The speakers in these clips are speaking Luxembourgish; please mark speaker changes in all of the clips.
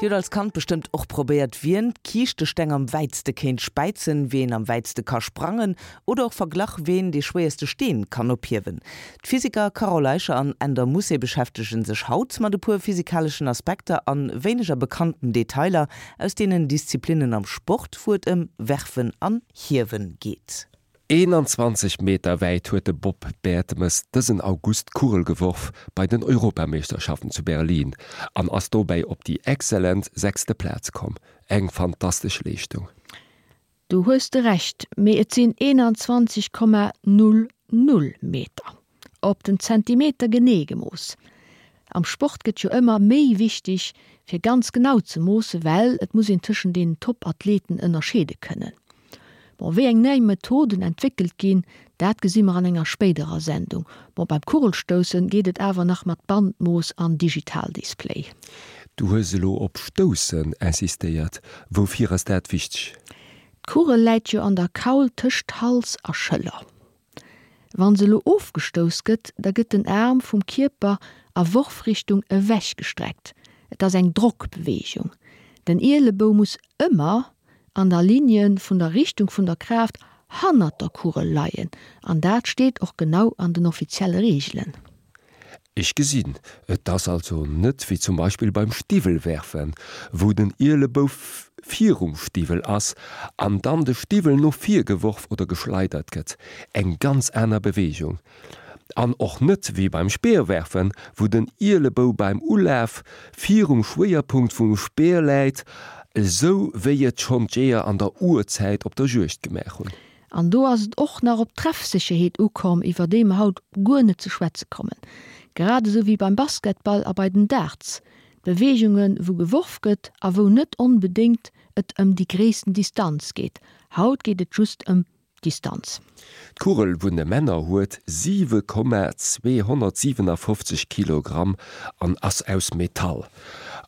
Speaker 1: Dir hutt als Kand bestëmmt och probéiert, wien d'Kiischtesteng am wäitste kéint späizen, wien am wäitste ka sprangen oder och verglach, ween dee schwéierste Steen kann ophiewen. D'Physiker Carole Eicher an Änder Mousset beschäftege sech haut mat e puer physikaleschen Aspekter an wéineger bekannten Detailer aus deenen Disziplinnen am Sport, wou et ëm Werfen an Hiewen geet.
Speaker 2: 21 Meter wäit huet de Bob Bertemes dësen August d'Kugel geworf bei den Europameeschterschaften zu Berlin an ass dobäi op déi exzellent sechste Plaz komm. Eng fantastesch Leeschtung.
Speaker 3: Do hues de Recht, mee et sinn 21,00 Meter. Op den Zentimeter genee gemooss. Am Sport gëtt jo ëmmer méi wichteg fir ganz genau ze moossen, well et muss een tëschent den Top-Athleten ënnerscheede kënnen. Bon, wéi eng nei Methoden entwéckelt ginn, dat gesi mer an enger spéiderer Sendung. Bon, beim Kugelstoussen geet et awer nach mat Bandmooss an Digitaldisplay.
Speaker 2: Du hues elo op stoussen insistéiert. Woufir ass dat wichteg?
Speaker 3: D'Kugel läit jo an der Kaul tëscht Hals a Schëller. Wann se elo ofgestouss gëtt, da gëtt den Aarm vum Kierper a Worfrichtung ewech gestreckt. Et ass eng Drockbeweegung. Den Ielebou muss ëmmer an der Ligne vun der Richtung vun der Kraaft hannert der Kugel leien, an dat steet och genau an den offizielle Reegelen.
Speaker 2: Ech gesinn, et ass also net wéi zum Beispill beim Stiwwelwerfen, wou den Ielebou virum Stiwwel ass an dann de Stiwwel no vir geworf oder geschleidert gëtt, eng ganz aner Beweegung. An och net wéi beim Speerwerfen, wou den Ielebou beim Ulaf virum Schwéierpunkt vum Speer läit, esou wéi et schonn d'Jeeër an der Urzäit op der Juegd gemaach hunn.
Speaker 3: An do ass et och nach op d'Treffsécherheet ukomm, iwwer déi mer haut guer net ze schwätze kommen. Grad esou wéi beim Basketball a bei den Darts, Beweegungen, wou geworf gëtt a wou net onbedéngt et ëm déi gréissten Distanz geet. Haut geet et just ëm d'Distanz.
Speaker 2: D'Kugel vun de Männer huet 7,257 Kilogramm an ass aus Metall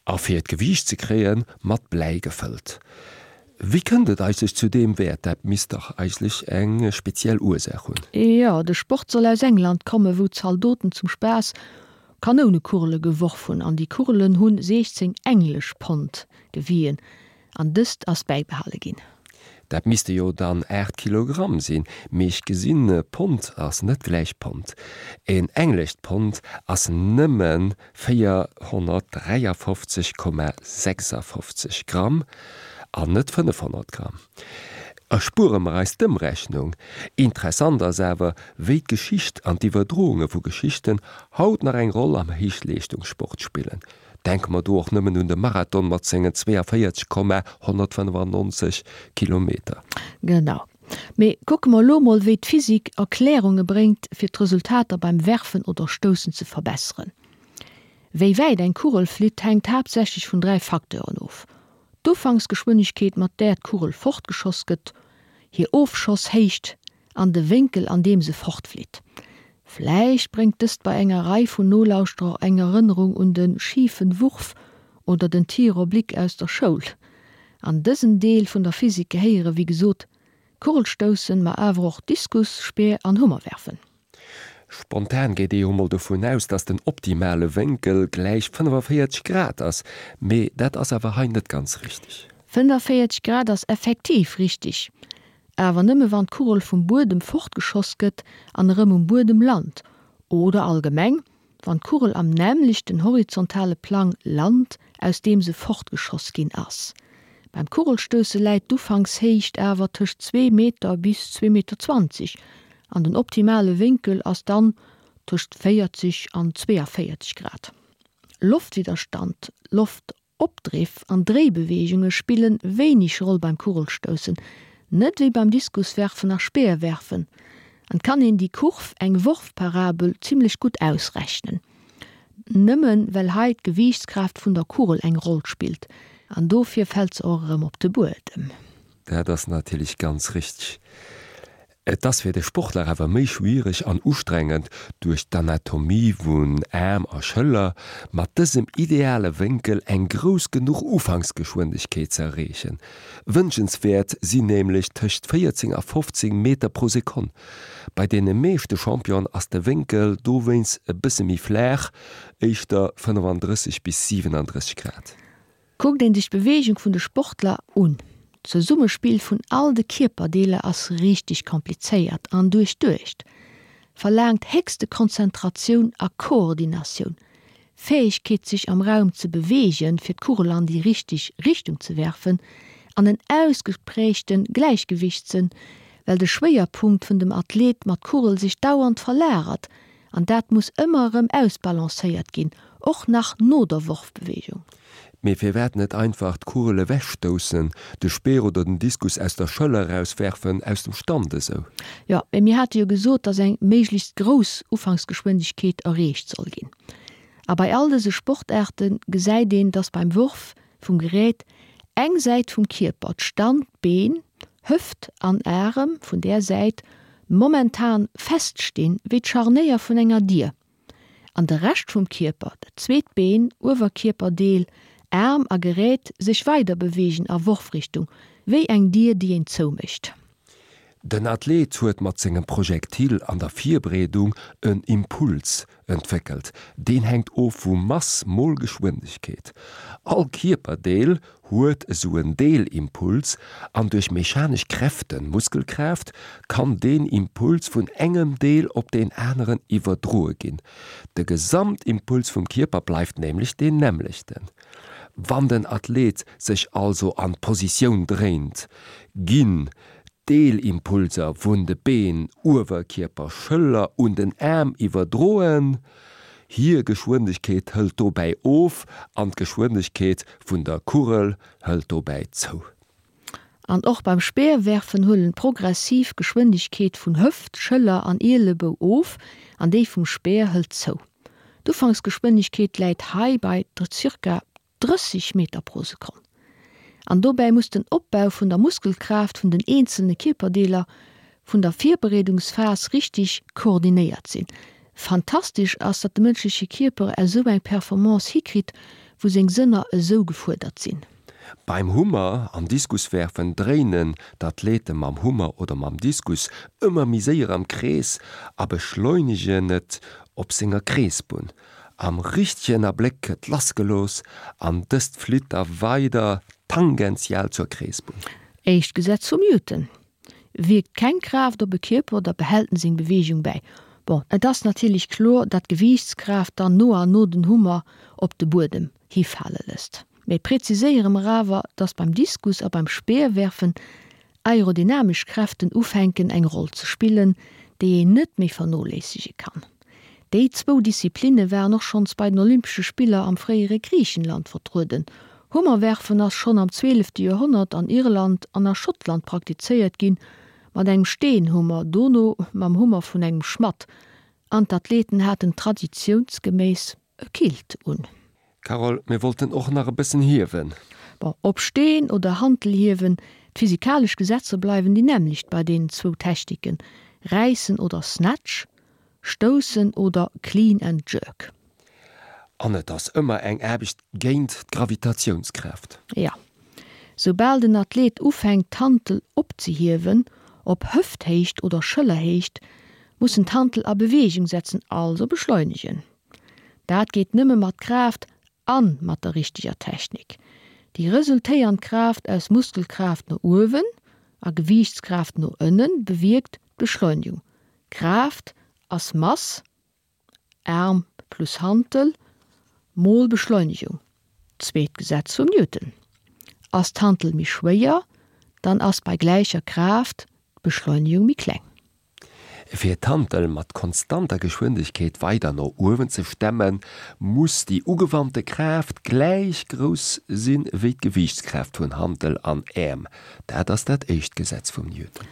Speaker 2: a fir d'Gewiicht ze kréien, mat Bläi gefëllt. Wéi kënnt et eigentlech zu deem Wäert? Dat misst dach eigentlech eng speziell Ursaach hunn.
Speaker 3: Jo, de Sport soll aus England kommen, wou d'Zaldoten zum Spaass Kanounekugele geworf hunn. An déi Kugelen hunn 16 englesch Pond gewien an dëst ass bäibehale ginn.
Speaker 2: Dat misste jo dann 8 Kilogramm sinn, mee ech gesinn, Pond ass net gläich Pond. En englescht Pond ass nëmmen 453,56 Gramm an net 500 Gramm. Erspuere mer eis d'Ëmrechnung. Interessant ass awer, wéi d'Geschicht an d'Iwwerdrounge vu Geschichten haut nach eng Roll am Héichleeschtungssport spillen. Denke mer do och nëmmen un de Marathon mat sengen 42,195 Kilometer.
Speaker 3: Genau. Mee kucke mer elo mol, wéi d'Physik Erklärunge bréngt, fir d'Resultater beim Werfen oder Stoussen ze verbesseren. Wéi wäit eng Kugel flitt, hänkt haaptsächlech vun 3 Facteuren of, d'Ufanksgeschwindegkeet, mat där d'Kugel fortgeschoss gëtt, hir Ofschosshéicht an de Wénkel, an deem se fortflitt. Vläicht bréngt dëst bei enger Rei vun Nolauschterer eng Erënnerung un de schifen Wurf oder den Tir oblique aus der Schoul. An dësen Deel vun der Physik gehéiere wéi gesot Kugelstoussen, ma awer och Diskus, Speer an Hummerwerfen.
Speaker 2: Spontan geet ee jo mol dovun aus, dass den optimale Wénkel gläich 45 Grad ass, mee dat ass awer hei net ganz richteg.
Speaker 3: 45 Grad ass effektiv richteg, awer nëmme wann d'Kugel vum Buedem fortgeschoss gëtt an erëm um Buedem lant, oder allgemeng, wann d'Kugel am nämmlechten horizontale Plang lant, aus deem se fortgeschoss ginn ass. Beim Kugelstousse läit d'Ufankshéicht awer tëscht zwee Meter bis zwee Meter 20 an den optimale Wénkel ass dann tëscht 40 an 42 Grad. Loftwidderstand, Loft Opdriff an Dréibeweegunge spillen wéineg Roll beim Kugelstoussen, net wéi beim Diskuswerfen a Speerwerfen. An kann een déi Kurv, eng Worfparabel, zimmlech gutt ausrechnen. Nëmmen well hei d'Gewiichtskraaft vun der Kugel eng Roll spillt, an dofir fält se och erëm op de Buedem.
Speaker 2: Dat ass natierlech ganz richteg. Et ass fir de Sportler awer méi schwiereg an ustrengend, duerch d'Anatomie vun Aarm a Schëller mat dësem ideale Wénkel eng grouss genuch Ufanksgeschwindegkeet ze erreechen. Wënschenswäert sinn nämlech tëscht 14 a 15 Meter pro Sekonn. Bei deene meeschte Championen ass de Wénkel dowéinst e bësse méi flaach, éischter 35 bis 37 Grad.
Speaker 3: Kuckt een sech d'Beweegung vun de Sportler un, d'Zesummespill vun all de Kierperdeeler ass richteg komplizéiert an duerchduecht, verlaangt héchste Konzentratioun a Koordinatioun, Fäegkeet sech am Raum ze beweegen fir d'Kugel an déi richteg Richtung ze werfen an en ausgeprägte Gläichgewichtssënn, well de Schwéierpunkt vun dem Athlet mat Kugel sech dauernd verlagert an dat muss ëmmer erëm ausbalancéiert ginn, och nach no der Worfbewegung.
Speaker 2: Mee firwat net einfach d'Kugel ewechstoussen, de Speer oder den Diskus aus der Schëller erauswerfen, aus dem Stand esou?
Speaker 3: Jo, mee mir hate jo gesot, dass eng méiglechst grouss Ufanksgeschwindegkeet erreecht soll ginn. A bei all dëse Sportaarte gesäit een, dass beim Worf vum Gerät eng Säit vum Kierper, d'Standbeen, Hëft an Arem vun där Säit, momentan feststinn, wéi d'Scharnéier vun enger Dier. An de Rescht vum Kierper, dat zweet Been, Uewerkierperdeel, Aarm a Gerät, sech weider beweegen a Worfrichtung, wéi eng Dier, déi een zoumécht.
Speaker 2: Den Athlet huet mat sengem Projektil an der Virbereedung en Impuls entwéckelt. Deen hänkt of vu Mass mol Geschwindegkeet. All Kierperdeel huet esou en Deelimpuls an duerch mechanesch Kräften, Muskelkraaft, kann deen Impuls vun engem Deel op deen aneren iwwerdroe ginn. De Gesamtimpuls vum Kierper bleift nämlech deen nämmlechten. Wann den Athlet sech also an d'Positioun dréint, ginn d'Deelimpulser vun de Been, Uewerkierper, Schëller un den Aarm iwwerdroen. Hir Geschwindegkeet hëlt dobäi of an d'Geschwindegkeet vun der Kugel hëlt dobäi zou.
Speaker 3: An och beim Speerwerfen huelen d'progressiv Geschwindegkeet vun Hëft, Schëller an Ielebou of an déi vum Speer hëlt zou. D'Ufanksgeschwindegkeet läit hei bei ca. 30 Meter pro Sekonn. An dobäi muss den Opbau vun der Muskelkraaft vun den eenzelne Kierperdeeler vun der Virbereedungsphas richteg koordinéiert sinn. Fantastesch ass, datt de mënschleche Kierper esou eng Performance hikritt, wou seng Sënner esou gefuerdert sinn.
Speaker 2: Beim Hummer an Diskuswerfen dréinen d'Athlete mam Hummer oder mam Diskus ëmmer méi séier am Krees a beschleunegen et op senger Kreesbunn. Am richtegen Abléck gëtt lassgelooss an dëst flitt da weider tangential zur Kreesbunn.
Speaker 3: Éischt Gesetz vum Newton, Wierkt keng Kraaft op e Kierper, da behält en seng Beweegung bäi. Bon, et ass natierlech kloer, datt d'Gewiichtskraaft dann no an no den Hummer op de Buedem hifale lësst. Mee preziséiere mer awer, datt beim Diskus a beim Speerwerfen aerodynamesch Kräften ufänken eng Roll ze spillen, déi een net méi vernoléissege kann. Déi zwou Disziplinne waren och schonns bei den Olympesche Spiller am fréiere Griichenland vertrueden. Hummerwerfen ass schonn am zwielefte Joerhonnert an Irland an a Schottland praktizéiert ginn, mat engem Steenhummer, dono mam Hummer vun engem Schmadd, an d'Athleten haten traditiounsgeméiss e Kilt un.
Speaker 2: Carole, mir wollten och nach e bëssen hiewen.
Speaker 3: Bon, ob Steen oder Hantel hiewen, d'physikalesch Gesetzer bleiwen déi nämmlecht bei deenen zwou Techniken, Räissen oder Snatch, Stoussen oder Clean and Jerk.
Speaker 2: An et ass ëmmer eng Aarbecht géint d'Gravitatiounskraaft.
Speaker 3: Jo. Soubal den Athlet ufänkt d'Hantel opzehiewen, op Hëfthéicht oder Schëllerhéicht, muss en d'Hantel a Beweegung setzen, also beschleunegen. Dat geet nëmme mat Kraaft an mat der richteger Technik. Déi resultéiernd Kraaft aus Muskelkraaft no uewen a Gewiichtskraaft no ënnen bewierkt d'Beschleunigung. Kraaft ass Mass, Aarm plus Hantel, mol Beschleunigung, zweet Gesetz vum Newton. Ass d'Hantel méi schwéier, dann ass bei gläicher Kraaft d'Beschleunigung méi kleng.
Speaker 2: Fir d'Hantel mat konstanter Geschwindegkeet weider no uewen ze stemmen, muss déi ugewannte Kraaft gläich grouss sinn wéi d'Gewiichtskraaft vun Hantel an Äerm. Dat ass dat éischt Gesetz vum Newton.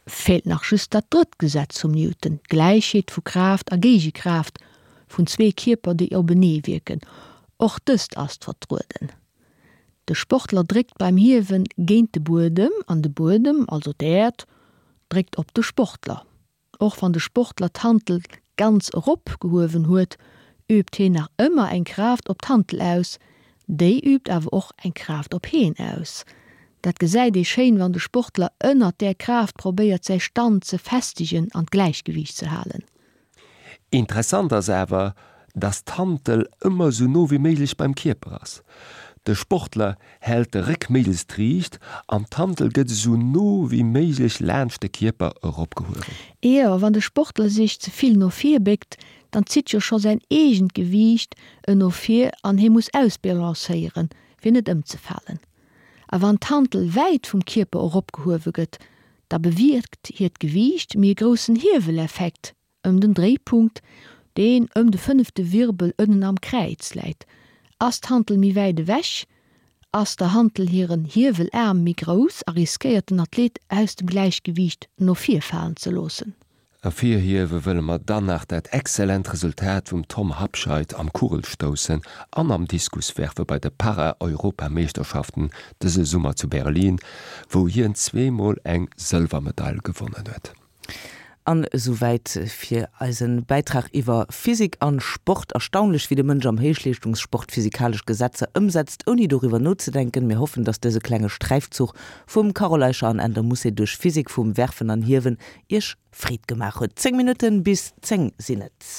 Speaker 3: Feelt nach just dat drëtt Gesetz vum Newton, d'Gläichheet vu Kraaft a Géigekraaft vun zwee Kierper déi openee wierken. Och dëst ass vertrueden. De Sportler dréckt beim Hiewen géint de Buedem an de Buedem, also d'Äerd, dréckt op de Sportler. Och wann de Sportler d'Hantel ganz erop gehuewen huet, übt heen nach ëmmer eng Kraaft op d'Hantel aus, déi übt awer och eng Kraaft op heen aus. Dat gesäit ee schéin, wann de Sportler ënnert där Kraaft probéiert säi Stand ze festegen an d'Gläichgewiicht ze halen.
Speaker 2: Interessant ass awer, dass d'Hantel ëmmer sou no wéi méiglech beim Kierper ass. De Sportler hält de Réck méiglechst riicht an d'Hantel gëtt esou no wéi méiglech laanscht de Kierper eropgehuewen.
Speaker 3: Jo, wann de Sportler sech ze vill no vir béckt, dann zitt jo scho säin eegent Gewiicht en no vir an hie muss ausbalancéieren, fir net ëmzefalen. A wann d'Hantel wäit vum Kierper eropgehuewe gëtt, da bewierkt hiert Gewiicht méi e groussen Hieweleffekt Ëm den Dréipunkt, deen ëm de fënnefte Wirbel ënnen am Kräiz läit. Ass d'Hantel méi wäit ewech, ass der Hantel hiren Hiewelaarm méi grouss a riskéiert den Athlet aus dem Gläichgewiicht no vir falen ze loossen.
Speaker 2: Ervirhiewe wëlle mer dann nach dat exzellent Resultat vum Tom Habscheid am Kugelstoussen an am Diskuswerfe bei de Para-Europameeschterschaften dëse Summer zu Berlin, wou hien zweemol eng Sëlwermedail gewonnen huet.
Speaker 1: An esouwäit fir eisen Bäitrag iwwer Physik an Sport. Erstaunlech wéi de Mënsch am Héichleeschtungssport physikalesch Gesetzer ëmsetzt ouni doriwwer nozedenken. Mir hoffen dass dëse klenge Sträifzuch vum Carole Eicher an Änder Mousset duerch Physik vum Werfen an Hiewen iech Freed gemaach huet. 10 Minutten bis 10 sinn et.